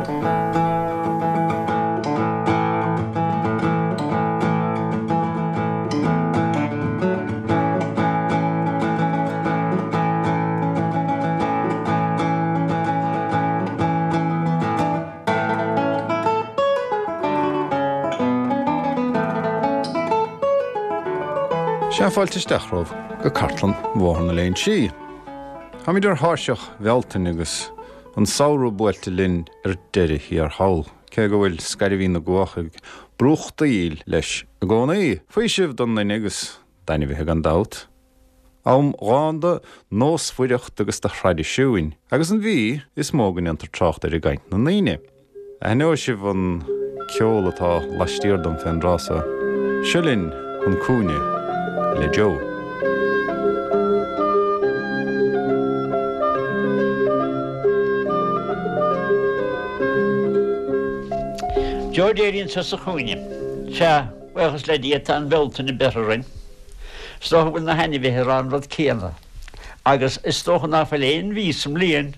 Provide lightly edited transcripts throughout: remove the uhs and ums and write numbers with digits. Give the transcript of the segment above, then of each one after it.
Sea, fáilte isteach romhaibh go Cartlann Bhóthar na Léinsí. Táimid ar thairseach Bhealtaine agus an samhradh buailte linn ar deireadh thiar thall, cé go bhfuil scairbhín na gcuach ag brúchtaíl leis i gcónaí. Faoiseamh don nduine agus d'ainmhithe gan dabht. Am dhán de nósmhaireacht agus de thraidisiúin, agus an mhí is mó go ndéantar trácht air i gcaint na ndaoine. Aithneoidh sibh an ceol atá laistiar dom fén dtráth so. Seo linn chun cúinne le Joe. Joe Daly anseo sa chúinne. Sea, buíochas le Dia, tá an Bhealtaine beirthe orainn. Is dócha go bhfuil na hainmhithe ag rá an rud céanna. Agus is dócha ná fuil aon mhí sa mbliain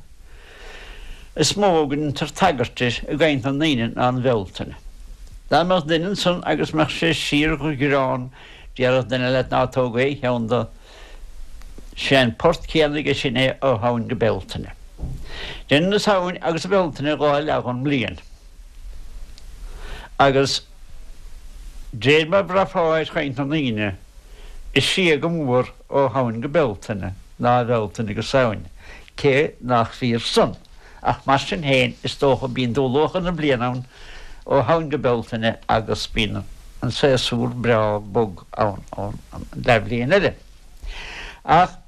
is mó go ndeintear tagairt di i gcaint na ndaoine ná an Bhealtaine. Dá mbeadh duine ansan agus mbeadh sé síor-ghreán, déarfadh duine leat ná tóg aon cheann de. Sé an port céanna aige sin é ó Shamhain go Bealtaine. Deineann an Samhain agus an Bhealtaine dhá leath dhon mbliain. Agus d'réir mar bhraithfeá ar chaint na ndaoine, is sia go mór ó Shamhain go Bealtaine ná Bealtaine go Samhain, cé nach fíor san. Ach mar sin féin, is dócha, bíonn dúluachair na bliana ann ó Shamhain go Bealtaine agus bíonn an séasúr breá bog ann ón leathbhliain eile. Ach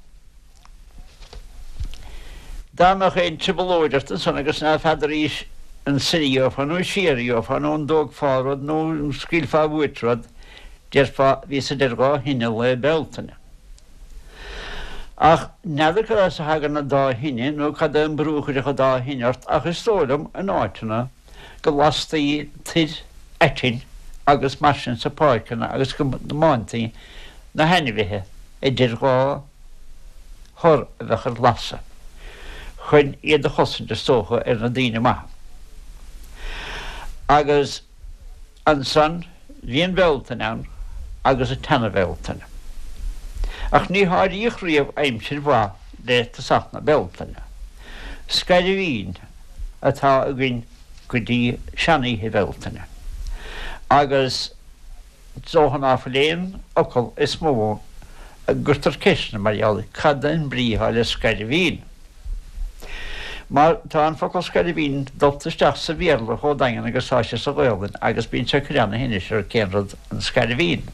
dá mbeadh aon trioblóid ort ansan agus ná feadaraís an soir a gheofá nó siar a gheofá nó an dtógfá rud nó an scaoilfeá uait rud, déarfá, bhíos idir dhá thine Lá Bealtaine. Ach n'fheadar cad as a thagann an dá thine nó cad é an brú a chuirfeadh an dá thine ort ach is dóigh liom, in áiteanna, go lastaí toir aitinn agus mar sin sa páirceanna agus go mbáintaí na hainmhithe idir dhá thor a bheadh ar lasadh, chun iad a chosaint is dócha ar na daoine maithe. Agus. Ansan bhí an Bhealtaine ann agus an tSeana-Bhealtaine. Ach ní háiríodh riamh aimsir mhaith le tosach na Bealtaine. Scairbhín atá againn go dtí sean-oíche Bhealtaine. Agus is dócha ná fuil aon fhocal is mó a gcuirtear ceisteanna mar gheall air, cad é an brí atá le scairbhín? Mar tá an focal scairbhín dulta isteach sa Bhéarla chomh daingean agus tá sé sa Ghaolainn agus bíonn sé ag cur ana-thinnis ar cén rud an scairbhín.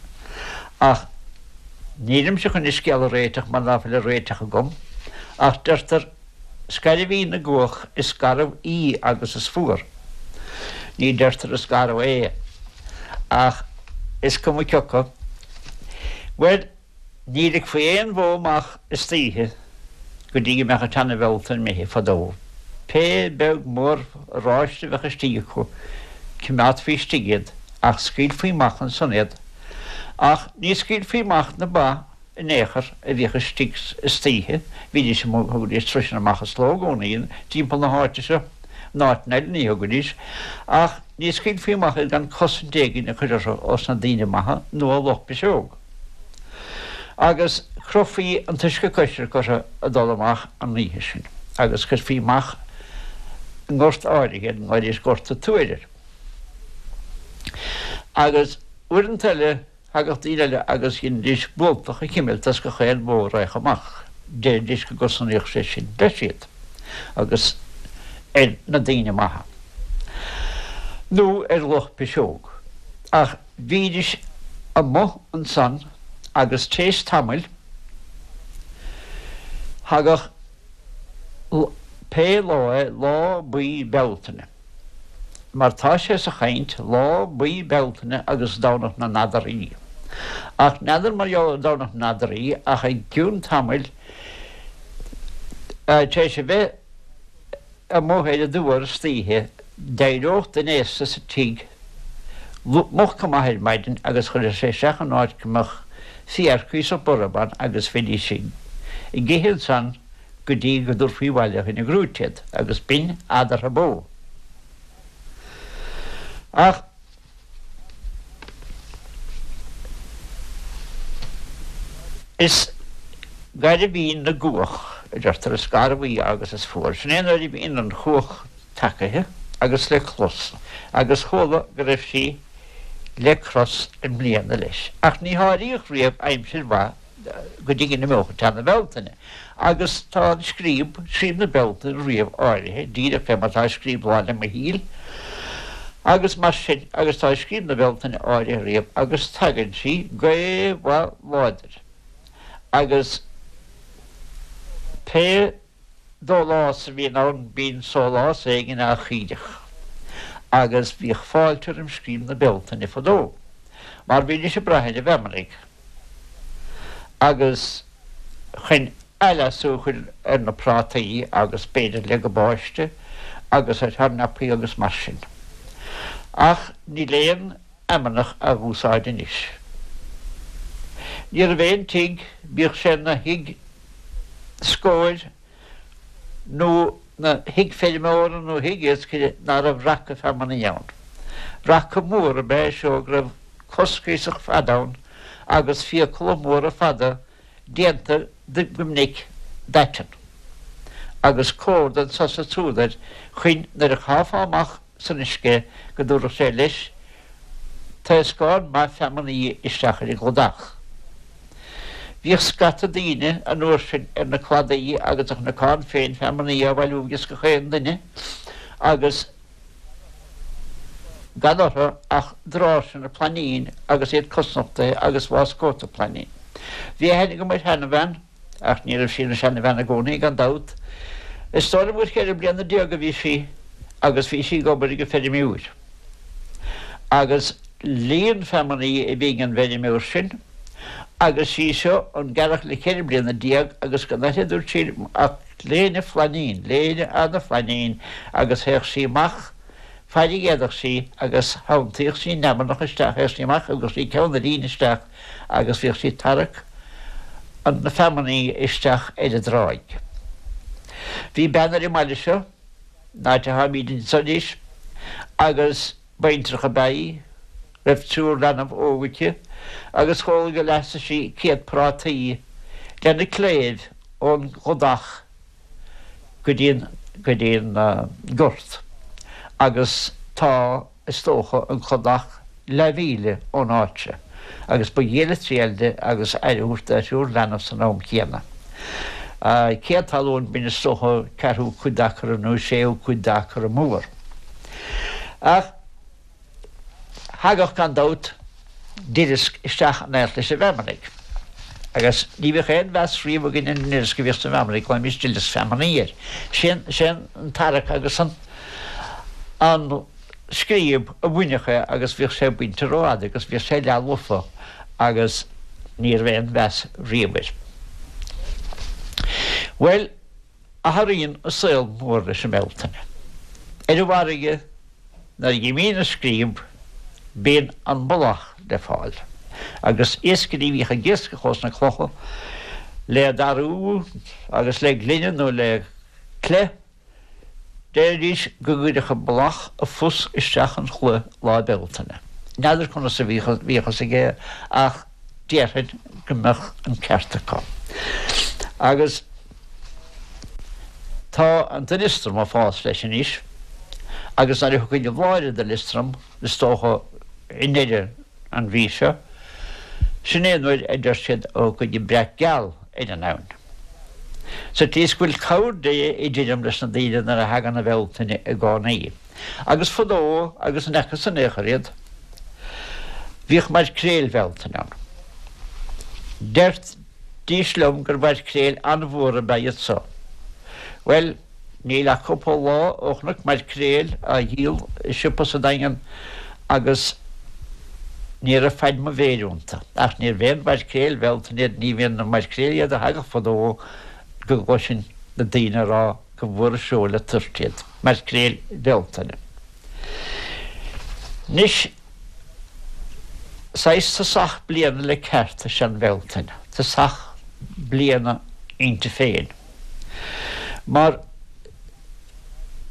Ach nílimse chun an scéal a réiteach mar ná fuil an réiteach agam, ach deirtear scairbhín na gcuach is garbh í agus is fuar. Ní deirtear is garbh é. Ach is cuma cioca. Bhuel, Ní ligfí aon bhó amach istoíche go dtí go mbeadh an tSeana-Bhealtaine imithe fadó. Pé beag mór oráiste a bheadh istigh acu, cimeádfaí istigh iad, ach scaoilfí amach ansan iad. Ach ní scaoilfí amach na ba in aon chor a bhíodh istigh istoíche, bhídís amuigh, thugaidís sroiseanna amach as leo i gcónaí timpeall na háite seo, in áiteanna eile ní thugaidís, ach ní scaoilfí amach iad gan cosaint éigin a chur orthu ós na daoine maithe nó ó luch piseog. Agus chrochfaí an t-uisce coisricthe orthu ag dul amach an oíche sin, agus chuirfí amach i ngort áirithe iad, nglaoidís Gort a' Tuair air. Agus uaireanta eile thagadh daoine eile agus dheinidís bualtach a chimilt as gach aon bhó a raghadh amach, deiridís go gcosnaíodh sé sin leis iad agus ar na daoine maithe, nó ar luch piseog. Ach. Bhídís amuigh ansan agus t'éis tamaill thagadh pé lá é, lá buí Bealtaine, mar tá sé sa chaint, lá buí Bealtaine agus Domhnach na nAdharthaí. Ach n'fheadar mar gheall ar Domhnach na nAdharthaí ach i gcionn tamaill, t'éis a bheith, amuigh ar an dtuar istoíche, d'éireodh duine aosta sa tigh moch go maith ar maidin agus chuirfeadh sé isteach in áit go mbeadh féar cuíosach borb ann agus bhídís ag ithe ansan go dtí go dtabharfaí abhaile chun an ghrúite iad agus b'in adhartha bó. Ach is gairbhín na gcuach, a deirtear, is garbh í agus is fuar. Sin é nuair a bhíonn an chuach tacaithe agus le clos, agus chuala go raibh sí le cros i mbliana leis. Ach ní háiríodh riamh aimsir mhaith go dtí go n-imeodh an teanna Bealtaine. Agus tá an scríob, scríob na Bealtaine riamh áirithe, díreach fé mar atá scríob Lá 'le Michíl, agus mar sin, agus tá scríob na Bealtaine áirithe riamh, agus tagann sí gaoth mhaith láidir, agus pé dólás a bhíonn ann bíonn sólás éigin á chíoradh, agus bhíodh fáilte roim scríob na Bealtaine fadó, mar bhídís ag brath ar an bhfeamnaigh. Agus chun athleasú a chur ar na prátaí agus b'fhéidir le gabáiste agus ar thornapaí agus mar sin. Ach níl aon fheamnach á úsáid anois. Ní raibh aon tigh, bíodh sé 'na thigh scóir nó 'na thigh feirmeora nó thigh iascaire, ná raibh raca feamnaí ann. Raca mór ab ea é seo go raibh cos cuíosach fada ann agus fiacla móra fada déanta go minic d'aiteann, agus córda anso 's ansúd air chuin nuair a chaithfeá amach san uisce go dtabharfadh sé leis taoscán maith feamnaí isteach ar an gcladach. Bhíodh scata daoine an uair sin ar na cladaí agus an cnocán féin feamnaí á bhailiú ages gach aon duine agus gan orthu ach dráirseanna plainín agus iad cosnochtaithe agus bháscóta plainín. Bhí aithne agam ar sheanbhean, ach ní raibh sí ina seanbhean i gcónaí, gan dabht. Is dóigh liom gur cheithre bliana déag a bhí sí agus bhí sí ag obair ag an feirmeoir. Agus líon feamnaí a bhí ag an bhfeirmeoir sin agus sí seo an gearrthach le cheithre bliana déag agus gan uirthi, a dúirt sí, ach léine phlainín, léine ana-phlainín agus théadh sí amach faid a d'fhéadfadh sí agus thonntaíodh sí an fheamnach isteach, théadh sí amach, thugadh sí ceann a líne isteach agus bhíodh sí ag tarrac an na feamnaí isteach ar an dtráigh. Bhí bean ar an mbaile seo, an áit atáimíd anso anois, agus baintreach ab ea í, raibh triúr leanbh óg aici, agus chuala gur leasaigh sí céad prátaí lena cléibh ón gcladach go dtí an, go dtí an gort agus tá, is dócha, an cladach leathmhíle ón áit seo agus ba dhiail a triail di agus aire a thabhairt dá thriúr leanbh san am céanna. Céad talún, b'in is dócha ceathrú cuid d'acra nó séú cuid d'acra mór. Ach thagadh gan dabht duileasc isteach in éineacht leis an bhfeamnaigh. Agus ní bhíodh aon mheas riamh againn ar an nduileasc a bhíodh sa bhfeamnaigh, ghlaoimis duileasc feamnaí air. Sé an tarrac agus an an scríob a bhainfeadh é agus bhíodh sé bainte rófhada agus bhíodh sé leath-lofa agus ní raibh aon mheas riamh air. Bhuel, athraíonn an saol mór leis an mBealtaine. Ar an bhfarraige, nuair a dh'imíonn an scríob, bíonn an mullach le fáil. Agus iascairí a bhíodh ag iascach ós na clocha le darú agus le gloine nó le cleith, Deiridís go gcuirfeadh an mullach a phus isteach an chloich Lá Bealtaine. N'fheadar conas a bhíodh a fhios aige ach déarfainn go mbeadh an ceart acu. Agus tá an duileastram ag fás leis anois agus nuair a thiocfaidh an bhláth ar an duileastram, is dócha i ndeireadh an mhí seo, sin é nuair a deir siad a thiocfaidh an breac geal ar an abhainn. Sa tslí is go bhfuil cabhair Dé i dtirim leis na daoine nuair a thagann an Bhealtaine i gcónaí. Agus fadó agus ní fhacthas in aon chor iad, bhíodh maircréil Bhealtaine ann. Deirdís liom gur mhaircréil an-mhór ab ea iad so. Bhuel, níl ach cúpla lá ó chonac maircréil á dhíol i siopa sa Daingean agus ní raibh faid mo mhéir iontu. Ach níorbh aon mhaircréil Bhealtaine iad, ní bhíonn na maircréil iad a thagadh fadó go gcloisinn na daoine ag rá go mhór an seó le toirt iad, maircréil Bhealtaine. Anois, saghas tosach bliana le ceart is ea an Bhealtaine, tosach bliana inti féin. Mar.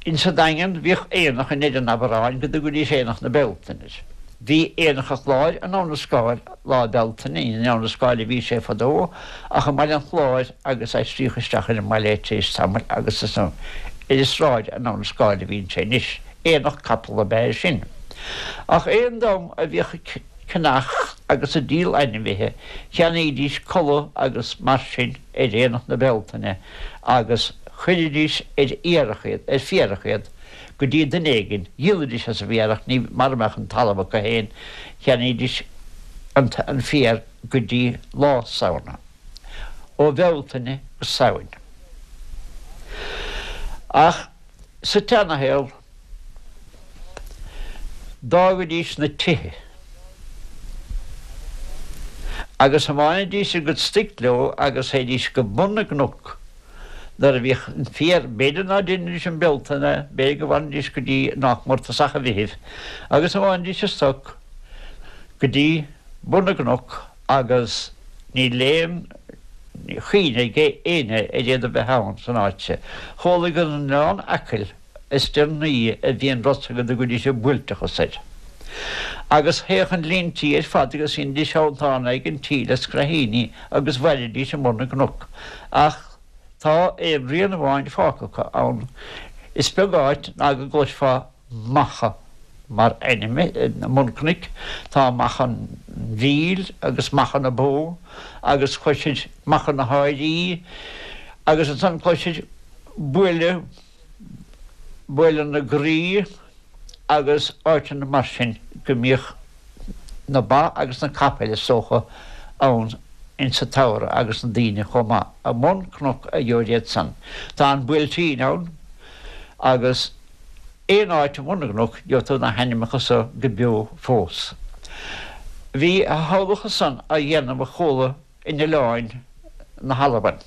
Insa Daingean bhíodh aonach i ndeireadh an Aibreáin go dtugaidís Aonach na Bealtaine air. Bhí Aonach an Chláir in Abha na Scáil lá Bealtaine, ní in Abha na Scáil a bhí sé fadó ach i mBaile an Chláir agus aistríodh isteach ar an mbaile é tar éis tamaill agus is ar an sráid in Abha na Scáil a bhíonn sé anois. Aonach capall ab ea é sin. Ach aon dream a bhíodh ag ceannach agus ag díol ainmhithe, cheannaídís culaith agus mar sin ar Aonach na Bealtaine agus chuiridís ar iarrach iad, ar fiarach iad, go dtí duine éigin, dhíolaidís as an bhfiarach, ní, mara mbeadh an talamh acu féin, cheannaídís an, an féar go dtí lá Samhna, ó Bhealtaine go Samhain. Ach sa tseanashaol, d'fhágaidís na tithe agus thiomáinidís a gcuid stoic leo agus théidís go bun na gcnoc nuair a bhíodh an féar, b'fhéidir ná deinidís um Bealtaine, b'fhéidir go bhfanfaidís go dtí nách mór tosach an Mheithimh, agus thiomáinidís a stoc go dtí bun na gcnoc agus níl aon chuimhne ag éinne ar iad a bheith ann san áit seo. Chuala gur in Oileán Acaill is deireanaí a bhí an rud so go dtugaidís an buailteachas air. Agus théadh an líon tí ar fad agus dheinidís triantán ag an tí le scraithíní agus mhairidís i mbun na gcnoc. Ach tá aon rian amháin fágtha acu ann. Is beag áit ná go gcloisfeá Macha mar ainm i mbun cnoic. Tá Macha an Mhíl agus Macha na Bó agus cloisir Macha na hAirí agus ansan cloisir Buaile Buaile na Graí agus áiteanna mar sin go mbíodh na ba agus na capaill is dócha ann insa tsamhradh agus na daoine chomh maith. I mbun cnoc a gheobhair iad san. Tá an Buailtín ann agus aon áit i mbun na gcnoc gheobhaidh tú na hainmneacha so go beo fós. Bhí a shamhlacha san á dhéanamh a chuala in oileáin na hAlban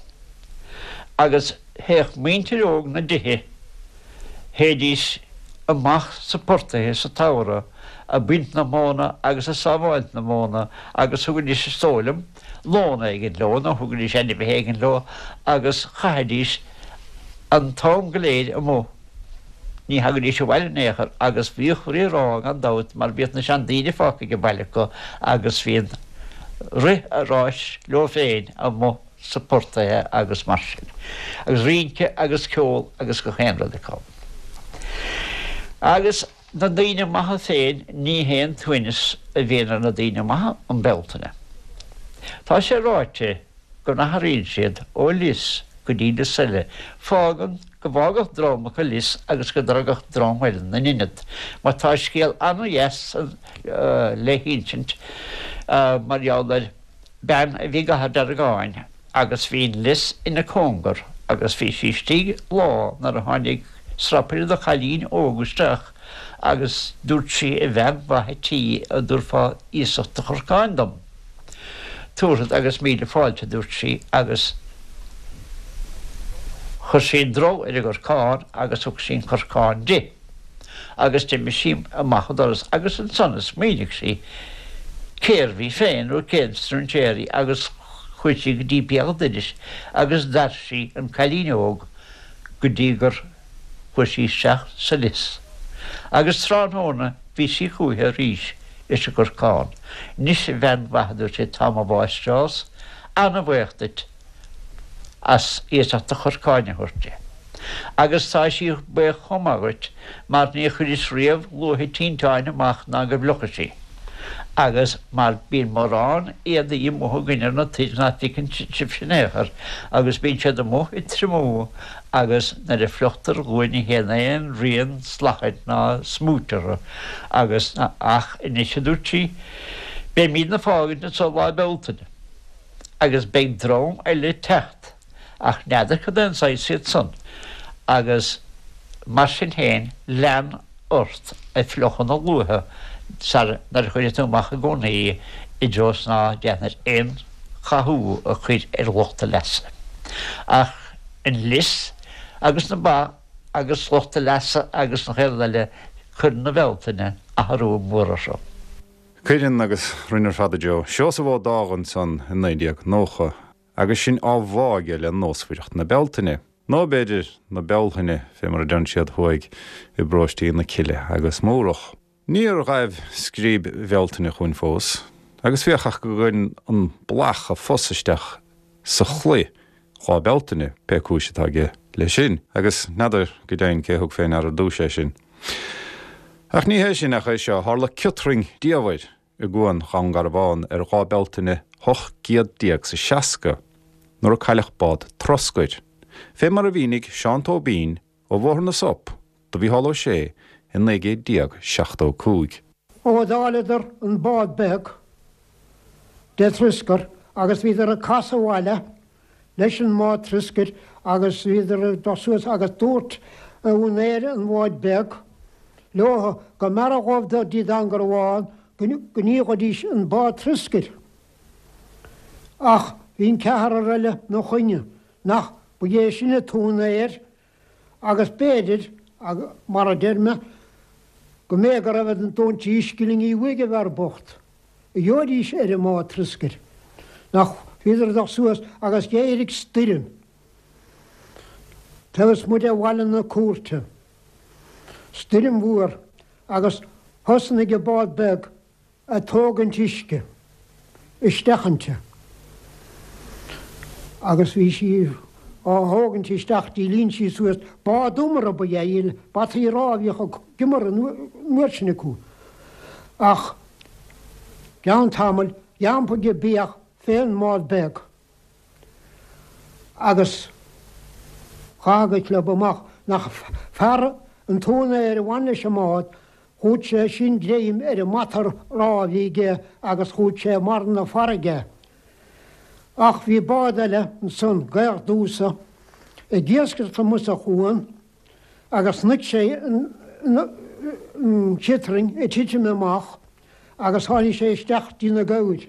agus théadh muintir óg na dtithe, théidís amach sa portaithe sa tsamhradh a' baint na móna agus a' sábháilt na móna agus thugaidís is dóigh liom lón éigin leo nó thugaidís ainmhithe éigin leo agus chaithidís an t-am go léir amuigh. Ní thagaidís abhaile in aon chor agus bhíodh rí-rá gan dabht mar bhíodh na seandaoine fágtha ag an baile acu agus bhí an rith a ráis leo féin amuigh sa portaithe agus mar sin. Agus rince agus ceol agus gach aon rud acu. Agus na daoine maithe féin ní haon t-uaigneas a bhíonn ar na daoine maithe um Bealtaine. Tá sé ráite go n-athraíonn siad ó lios go dtí lios eile. Fágann go bhfágfadh dream acu lios agus go dtagadh dream eile 'na n-ionad. Mar tá scéal ana-dheas le hinsint mar gheall ar bean a bhí i gCathair Deargáin agus bhí an lios ina cóngar agus bhí sí istigh lá nuair a tháinig strapaire de chailín óg isteach agus dúirt sí a bhean mhaith a' tí an dtabharfá iasacht do chorcáin dom. Tabharfad agus míle fáilte, a dúirt sí, agus chuir sí an drol ar an gcorcán agus thug sí an corcán di. Agus d'imigh sí amach an doras agus ansan a smaoinigh sí cérbh í féin nó cén strainséir í agus chuaigh sí go dtí béal an dorais agus d'fhair sí an cailín óg go dtí gur chuaigh sí isteach sa lios. Agus tráthnóna bhí sí chúiche arís leis an gcorcán. Anois a bhean mhaith, a dúirt sí, tá mo mháistreás ana-bhaoch duit as iasacht do chorcáin a thabhairt di. Agus tá sí baoch chomh maith dhuit mar ní chuiris riamh luaithe tinteáin amach ná go bhfliuchadh sí. Agus mar bíonn mórán éadaí amuigh againn ar na toir ná feiceann sibhse in aon chor, agus bíonn siad amuigh ag triomú agus nuair a fliuchtar dhúinn ní théann aon rian slachain ná smúit orthu agus ach anois a dúirt sí, beimídne fágaint anso Lá Bealtaine agus beidh dream eile ag teacht ach n'fheadar cad é an saghas iad san agus mar sin féin lean ort ag fliuchadh na luaithe sar nuair a chuirfidh tú amach i gcónaí í i dtreo is ná déanfair aon chathú a chur ar lucht a leasa. Ach an lios agus na ba agus lucht a leasa agus an chéad rud eile, cuireann an Bhealtaine athrú mór orthu. Cuireann, agus rinne ar fad a Joe. Seosamh Ó Dágha ansan i 1990 agus sinn á bhá aige le nósmhaireacht na Bealtaine. Nó b'fhéidir na Bealthaine, fé mar a deireann siad thuaidh i bparóistí na Cille agus Mórdhach. Níor ghaibh scríb Bhealtaine chugainn fós, agus féach ach go gcuireann an blach a phus isteach sa chlaí Lá Bealtaine, pé cúis atá aige leis sin, agus n'fheadar go deimhin cé thug fé ndeara ar dtúis é sin. Ach ní hé sin ach é seo, tharla ciotrainn diamhair i gCuan Dhún Garbhán ar Dhá Bealtaine 18 's a 60, nuair a cailleadh bád troscair, fé mar a mhínigh Seán Tóibín ó Bhóthar na Sop do Mhícheál Ó Sé i 1975. Ó d'fháileadar an bád beag de troscar agus bhíodar ag casadh abhaile leis an mbád troscair agus bhíodar ag dul suas agus dúirt úinéir an bháid beag leo go mb'fhearra dhóibh dul dtí Dún Garbhán go ndíolfaidís an bád troscair. Ach bhí an ceathrar eile 'na choinne, nach ba é sin an t-úinéir agus b'fhéidir, mar a deir mé, go mb'é go raibh an dóintí scillingí uaidh an bhfear bocht, a gheobhaidís ar an mbád troscair. Nach bhíodar ag dul suas agus d'éirigh stoirm taobh ismuigh de bhaile na cúirte, stoirm mhór, agus thosnaigh an bád beag ag tógaint uisce isteach inti agus bhí sí á thógaint isteach dtí líon sí suas. Bád iomartha ba ea í, bataí rámha a bhíodh ag iomar an uair sin acu. Ach gceann tamaill d'iompaigh an beach fén mbád beag agus chaith go club amach nach fear an t-úinéir a bhain leis an mbád Chuaigh sé sin greim ar an mbata rámha a bhí aige agus chuaigh sé i mbarra na farraige. Ach bhí bád eile ansan, Gaoth Dúsa, ag iascaireacht amuigh sa chuan agus chonaic sé an chiotrainn ag titim amach agus tháinig sé isteach dtí na gabhair.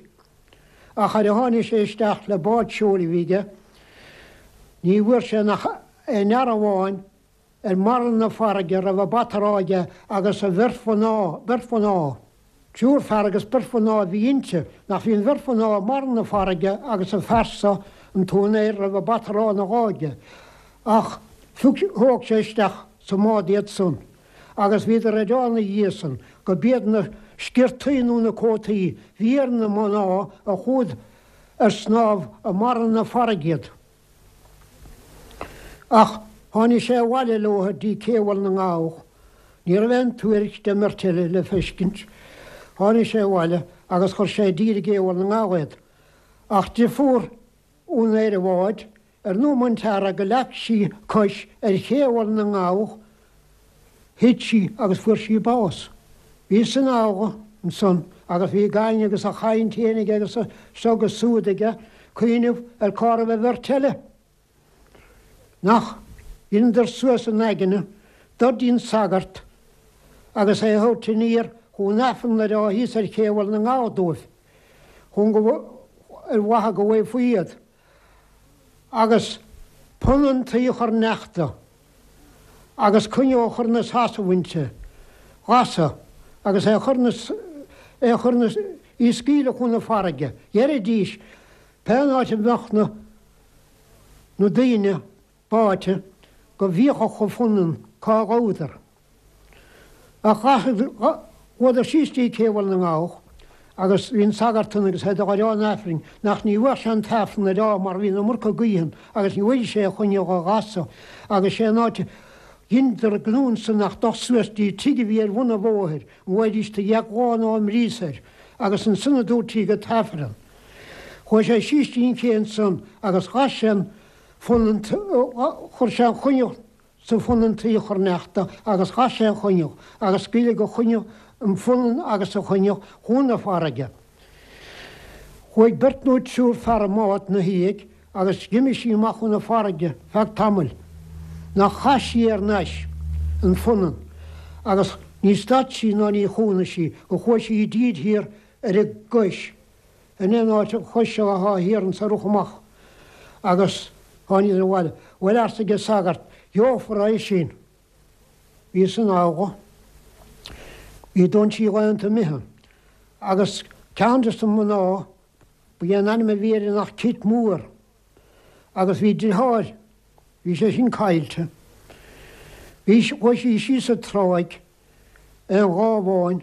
Ach ar a tháinig sé isteach le bád seoil a bhí aige, ní bhfuair sé nach aon fhear amháin ar mbarra na farraige a raibh a bata rámha aige agus a bheirt mhná, beirt mhná, triúr fear agus beirt mhná a bhí inti, nach bhí an bheirt mhná i mbarra na farraige agus an fear so, an t-úinéir, a raibh a bata rámha ina dhá aige. Ach phioc, thóg sé isteach sa mbád iad san agus bhíodar ag rá ina dhiaidh san go b'iad na sciortaí nó na cótaí bhí ar na mná a chuaigh ar snámh i mbarra na farraige iad. Ach tháinig sé abhaile leo dtí Cé Bhaile na nGabhach. Ní raibh aon tuairisc den mbeirt eile le feiscint. Tháinig sé abhaile agus chuir sé i dtír i gCé Bhaile na nGabhach iad. Ach deirfiúr úinéir an bháid, ar an nóiméad an t-earra go leag sí cois ar Ché Bhaile na nGabhach, thit sí agus fuair sí bás. Bhí san fhogha ansan agus bhí gach éinne agus a chaint fhéin aige agus a seo agus súd aige, cuimhneamh ar cá raibh an bheirt eile. Nach dheineadar suas a n-aigne dul dtí'n sagart agus é a thabhairt aniar chun Aifreann a rá thíos ar Ché Bhaile na nGabhach dóibh, chun go, ar mhaithe go bhfaighfí iad. agus punann tuí a chur neachta agus coinneal a chur 'na seasamh inti, ghasadh agus é a chur 'na, é a chur 'na, í a scaoileadh chun na farraige. Dheiridís, pé áit a mbeadh na, na daoine báite, go bhfiachfadh an phunann cá ghabhadar. Ach chuadar síos dtí Cé Bhaile na nGabhach agus bhí an sagart ann agus é ag rá an Aifrinn nach ní bheadh sé an tAifreann a rá mar bhí an iomarca gaoithe ann agus ní bhfaighidh sé a choinneal a ghasadh agus sé an áit a dheineadar gnó ansan ach dul suas dtí tigh a bhí ar bhun an bhóthair an bhfaighidís do dheich lá ná mias air agus ansan a dúirt go tAifreann. Chuaigh sé síos dtí an ché ansan agus ghas sé an phunann chuir sé an choinneal sa phunann tuí a chur neachta agus ghas sé an choinneal agus scaoileadh an choinneal, an phunann agus an choinneal chun na farraige. Chuaigh beirt nó triúr fear i mbád 'na dhiaidh agus d'imigh sí amach chun na farraige feadh tamaill nach chas sí ar n-ais an phunann agus ní stad sí ná ní chúnaigh sí go chuaigh sí i dtír thiar ar an gcois In aon áit an chois seo athá thiar anso ar amach agus tháiniodar abhaile. Bhuel arsa an sagart, gheofar é sin. Bhí san fhogha. Bhí dóintí laethanta imithe. Agus ceann des na mná, ba é an ainm a bhí uirthi nach Cit Mór. Agus bhí driotháir. Bhí sé sin caillte. Bhí, chuaigh sí síos an tráigh aon lá amháin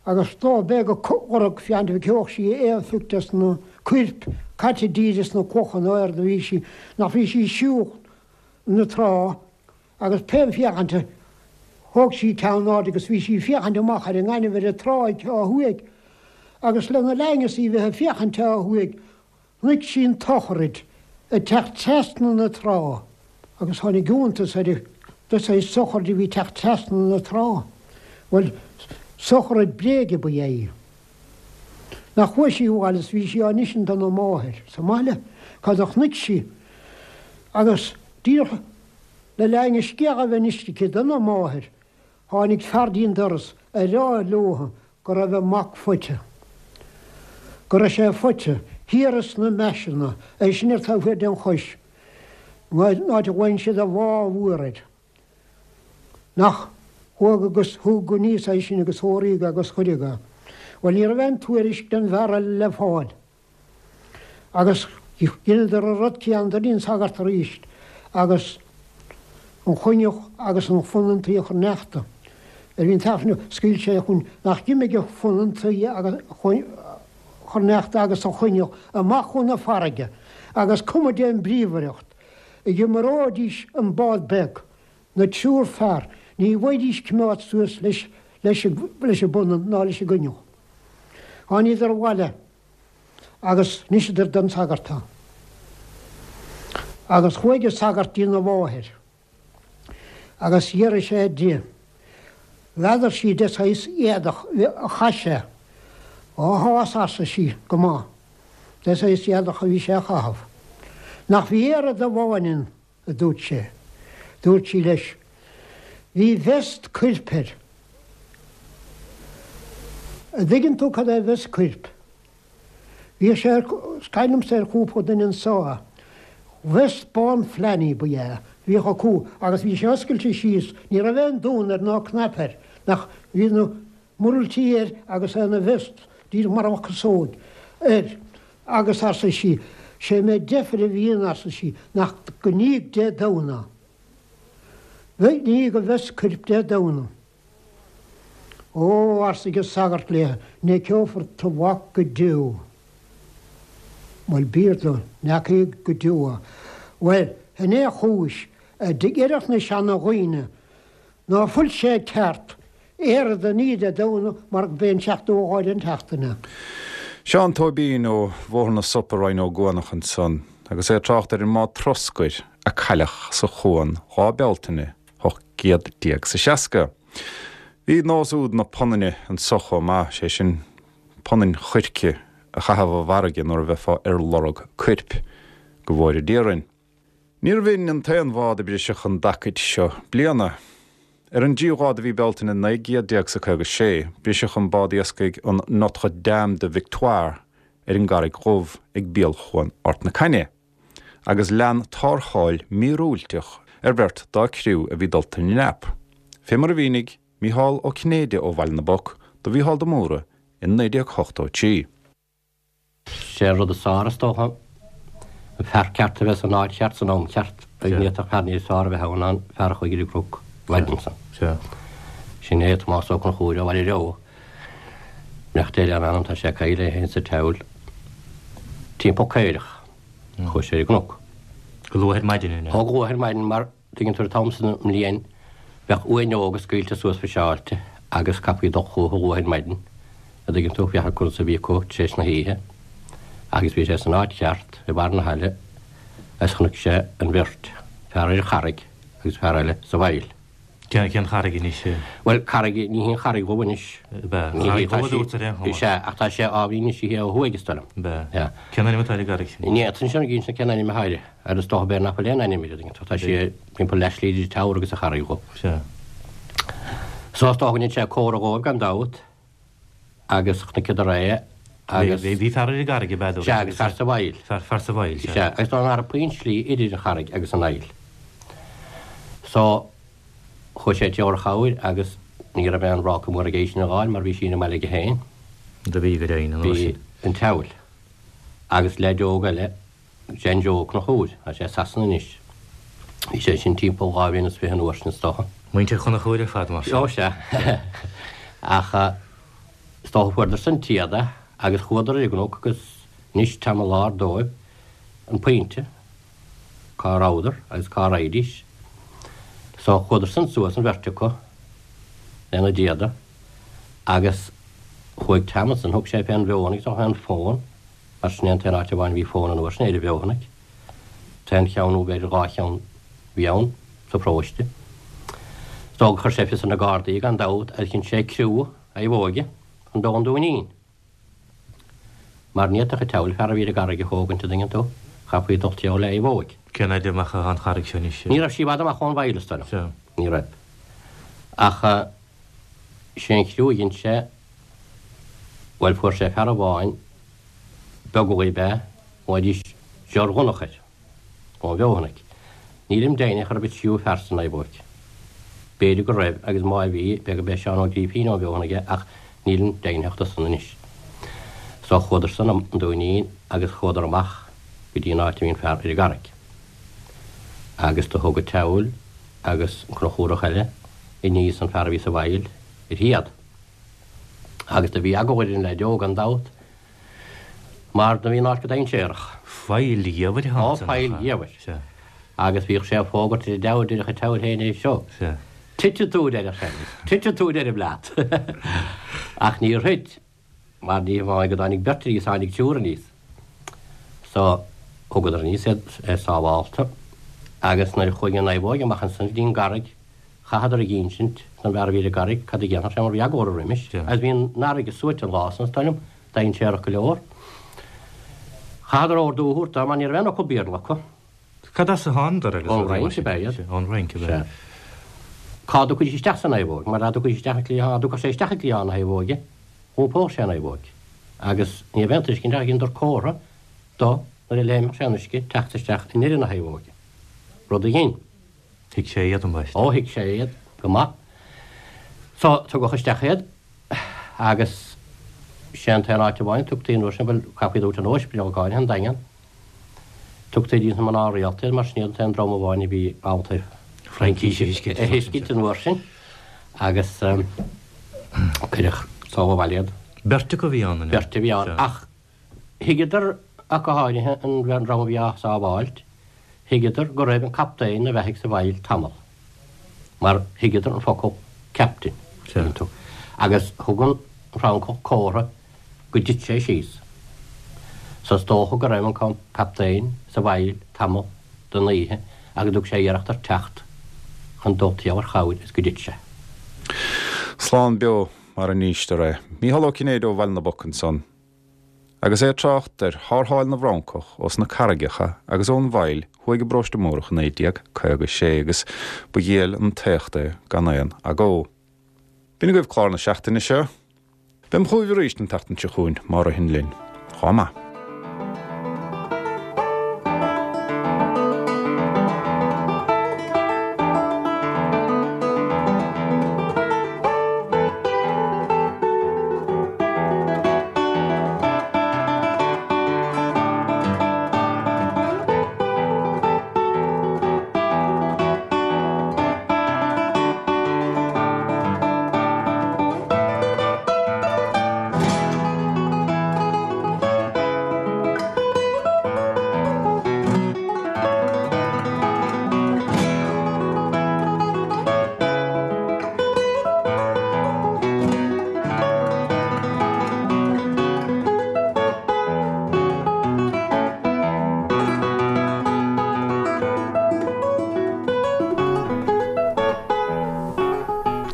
agus dob é go lorg féachaint an bhfeicfeadh sí aon phioc des na coirp caite díreach sna clocha nó éard a bhí sí, nach bhí sí siúl na trá agus pé féachaint a thóg sí ceann in airde agus bhí sí féachaint amach ar an ngaineamh ar an tráigh ó thuaidh agus lena linn is í bheith ag féachaint ó thuaidh Chonaic sí an tsochraid ag teacht trasna na trá agus tháinig iontas uirthi de saghas sochraid a bhí ag teacht trasna na trá. Bhuel, sochraid bréige ba ea í. Nach chuaigh sí abhaile is bhí sí á n-insint dona máthair sa mbaile cad a chonaic sí agus díreach le linn an scéal a bheith inste aici dona máthair Tháinig fear dtí'n doras a rá leotha go raibh a mac faighte. Go raibh sé faighte thiar sna Meaiseanna, é sin ar taobh thiar den Chois, an áit a ghlaonn siad an Bhá Mhór air. Nach chuaigh agus thug aníos é sin agus tórraíodh agus cuireadh é. Bhuel, ní raibh aon tuairisc den bhfear eile le fáil. Agus dheineadar an rud céanna dtí'n sagart arís agus an choinneach agus an phunann tuí a chur neachta. Ar bhí an t-aifreann scaoil sé chun nach d'imigh an phunann tuí agus chur neachta agus an choinneach amach chun na farraige agus cuma dén bríomhaireacht a maróidís an bád beag na triúr fear ní bhfaighidís coimeád suas leis leis an bpunann ná leis an gcoinneach. Tháiníodar abhaile agus d'inseadar don sagart é. Agus chuaigh an sagart dtína mháthair agus d'fhiafraigh sé di, n'fheadar sí de saghas éadach a chaith sé. Ó tá fhios arsa sí, go maith, de saghas éadach a bhí sé a chaitheamh. Nach bhí oiread amháin ann a dúirt sé. Dúirt sí leis, Bhí vest coirp air. A dtuigeann tú cad é vest coirp? Bhíodh sé ar, is cuimhin liomsa ar chúpla duine anso é. Vest bán flannel ba ea é, bhíodh acu agus bhí sé oscailte síos, ní raibh aon dún air ná cnaipe air, nach, bhí na murlaití air agus é ina vest, díreach mar a bheadh casóg air. Agus arsa sí, sé méid deifir a bhí ann, arsa sí, nach go níodh Dé Domhnaigh. Bheith níodh a vest coirp Dé Domhnaigh. Ó, arsa an sagart léi, n'fheiceofar do mhac go deo. Bhuel, b'fhíor dó, n'fheacaidh go deo é. Bhuel, shin é an chúis a deireadh na seana-dhaoine Ná fuil sé ceart oiread a ní Dé Domhnaigh mar go b'é an seachtú lá den tseachtain é. Seán Tóibín ó Bhóthar na Sop i Rinn Ó gCuanach ansan agus é ag trácht ar an mbád troscair a cailleadh sa chuan Lá Bealtaine 18 is a 60. Bhí nós úd na punainne anso chomh maith, sé sin punann choirce a chaitheamh i bhfarraige nuair a bheifeá ar lorg coirp, go bhfóire Dia orainn. Níorbh in an t-aon bhád a briseadh an dtacaid seo bliana. Ar an dtríú lá de mhí Bealtaine 19 gcéad is a 56, briseadh an bád iascaigh an Notre Dame de Victoire ar an gCarraig Dhubh ag béal Chuan Ard na Caithne, agus lean tarrtháil mhíorúilteach ar bheirt dá criú a bhí dulta i ndreap, fé mar a mhínigh Mícheál Ó Cinnéide ó Bhaile na bPoc do Mhícheál de Mórdha i 1983. Sé an rud is fearr, is dócha, an fear ceart a bheith san áit cheart san am ceart. Ní fhéadfadh fear níos fearr a bheith ann ná an fear a chuaigh ar an gcnoc an mhaidin san. Sin é Tomás Ó Conchúir ó Bhaile Reo. Beannacht Dé lena anam, tá sé caillte é féin sa tSeabhail. Timpeall caorach. Chuaigh sé ar an gcnoc. Go luath ar maidin, an ea? Ó, go luath ar maidin mar Tuigeann tú an t-am san den mbliain bheadh uaineoga scaoilte suas fiseáilte agus chaithfí dul chucu luath ar maidin, a dtuigeann tú, féachaint conas a bhí acu tar éis na hoíche. Agus bhí sé san áit cheart, i mbarr na haille, agus chonaic sé an bheirt, fear ar an charraig agus fear eile sa bhfaill. Cén, cén charraig anois? Bhuel, carraig, ní hí an Charraig Dhubh anois. Ab ea? Ní hí, tá sí, is ea, ach tá sé ábhairín níos sia ó thuaidh, is dóigh liom. Ab ea? Ea. Cén ainm atá ar an gcarraig sin? Ní fhéadfainn sin a inse cén ainm atá uirthi. Ar is dócha b'fhéidir nach bhfuil aon ainm uirthi, an dtuigeann tú. Tá sí timpeall leathshlí idir Teamhair agus an Charraig Dhubh. Sea. So is dócha go ndein sé comhartha dhóibh gan dabht agus chonaiceadar é agus. Bhí, bhí fear ar an gcarraig ab ea? Sea, agus fear sa bhfaill. Fear, fear sa bhfaill, sea. Sea, agus nach raibh puinn slí idir an charraig agus an fhaill. So, chuaigh sé ag tabhairt chabhair agus ní raibh aon bhráca mór aige í sin a dh'fháil mar bhí sí ina mbaile aige féin. Do bhí, go deimhin, an uair sin. Bhí an tSeabhail. Agus leaid óg eile. John Joe Ó Conchúir, tá sé i Sasana anois. Bhí sé sin timpeall 2 bhliain is 20 an uair sin is dócha. Muintir Chonchúir ar fad mar sin. Ó sea. Ach is dócha fuaireadar san téada agus chuadar ar an gcnoc agus d'inis Tom an Láir dóibh an pointe cá rabhadar agus cá raghaidís. So chuadar san suas an bheirt acu lena dtéada agus chuaigh Tom ansan thug sé fén bhFeothanaigh is dócha fén bhfón mar sin é an t-aon áit amháin a bhí fón an uair sin ar an bhFeothanaigh. T-aon cheann nó b'fhéidir 2 cheann a bhí ann sa pharóiste. Is dócha gur chuir sé fios ar na Gardaí gan dabht agus dhein sé criú naomhóige chun dul 'on Dúinín. Mar ní fhéadfadh an tSeabhail fear a bhí ar an gcarraig a thógaint an dtuigeann tú, chaithfí dul timpeall le naomhóig. Cén fhaid amach atá an charraig seo anois? Ní raibh sí i bhfad amach ón bhfaill is dóigh liom. Ní raibh. Ach sé an chriú a dhein sé, bhuel fuair sé fear amháin, Beaglaoich ab ea, ghlaoidís George Dhonncha air, ón bhFeothanaigh. Nílim deimhneach arbh an tríú fear sa naomhóig. B'fhéidir go raibh agus má bhí, b'fhéidir gurb é Seán Ó Grífín ón bhFeothanaigh é ach nílim deimhneach de san anois. So chuadar san an Dúinín agus chuadar amach go dtí an áit a bhí an fear ar an gcarraig. Agus do thug an tSeabhail agus an Conchúrach eile aníos an fear a bhí sa bhfaill uirthi iad. Agus do bhí eagla ar an leaid óg gan dabht mar do bhí an áit go dainséarach. Faill gheimhridh Ó, faill gheimhridh. Sea. Agus bhíodh sé ag fógairt ar an diabhal deireadh an tSeabhail féin é seo. Sea. Titfidh tú, deireadh sé. Titfidh tú, deirim leat. Ach níor thit, mar ní hamháin go dtáinig beirt aníos, tháinig triúr aníos. So, thugadar aníos iad sábhálta agus nuair a chuaigh an naomhóig amach ansan go dtí an gcarraig, Chaitheadar ag insint don bhfear a bhí ar an gcarraig cad a dhéanfadh sé mar bhí eagla orthu roimis agus bhí an fharraige suaite an lá san, is dóigh liom, dainséarach go leor. Chaitheadar ordú a thabhairt dó mar ní raibh aon fhocal Béarla acu. Cad as a thánadar agus Ón Fhrainc ab ea iad. Ón Fhrainc ab ea. Sea. Cá dtiocfaidís isteach sa naomhóg? Mar dá dtiocfaidís isteach an cliathán, dá dtiocfadh sé isteach i gcliathán na naomhóige, dh'iompódh sé an naomhóg. Agus ní raibh aon tuiscint ach dheineadar comhartha do nuair a léimfeadh sé an uisce teacht isteach i ndeireadh na naomhóige. Rud a dhein. Thuig sé iad, ambaiste. Ó, thuig sé iad go maith. So, tugadh isteach iad agus sé an t-aon áit amháin a tugtaí an uair sin, bhuel, chaithfí iad a thabhairt chun ospidéal go háirithe, an Daingean. Tugtaí dtí na mná rialta iad mar sin iad an t-aon dream amháin a bhí ábalta Fraincís a thuiscint. a thuiscint an uair sin agus cuireadh sall abhaile iad. Beirt acu a bhí ann, an ea? Beirt a bhí ann, ach Thuigeadar, ach go háirithe, an dream a bhí á sábháilt, thuigeadar go raibh an captaen ina bheathaidh sa bhfaill tamall, mar thuigeadar an focal captain, tuigeann tú, agus thug an Francach comhartha go dtit sé síos. So is dócha go raibh an captaen sa bhfaill tamall den oíche agus thug sé iarracht ar teacht chun dul timpeall ar chabhair is go dtit sé. Slán beo mar a n-instear é. Mícheál Ó Cinnéide ó Bhaile na bPoc ansan. Agus é ag trácht ar thárrtháil na bhFrancach ós na carraigeacha agus ón bhfaill thuaidh i bParóiste Múrach i 1956 agus ba dhiail an t-éacht é gan aon agó. B'in agaibh clár na seachtaine seo. Beam chugaibh arís an tseachtain seo chugainn má ritheann linn. Chomh maith.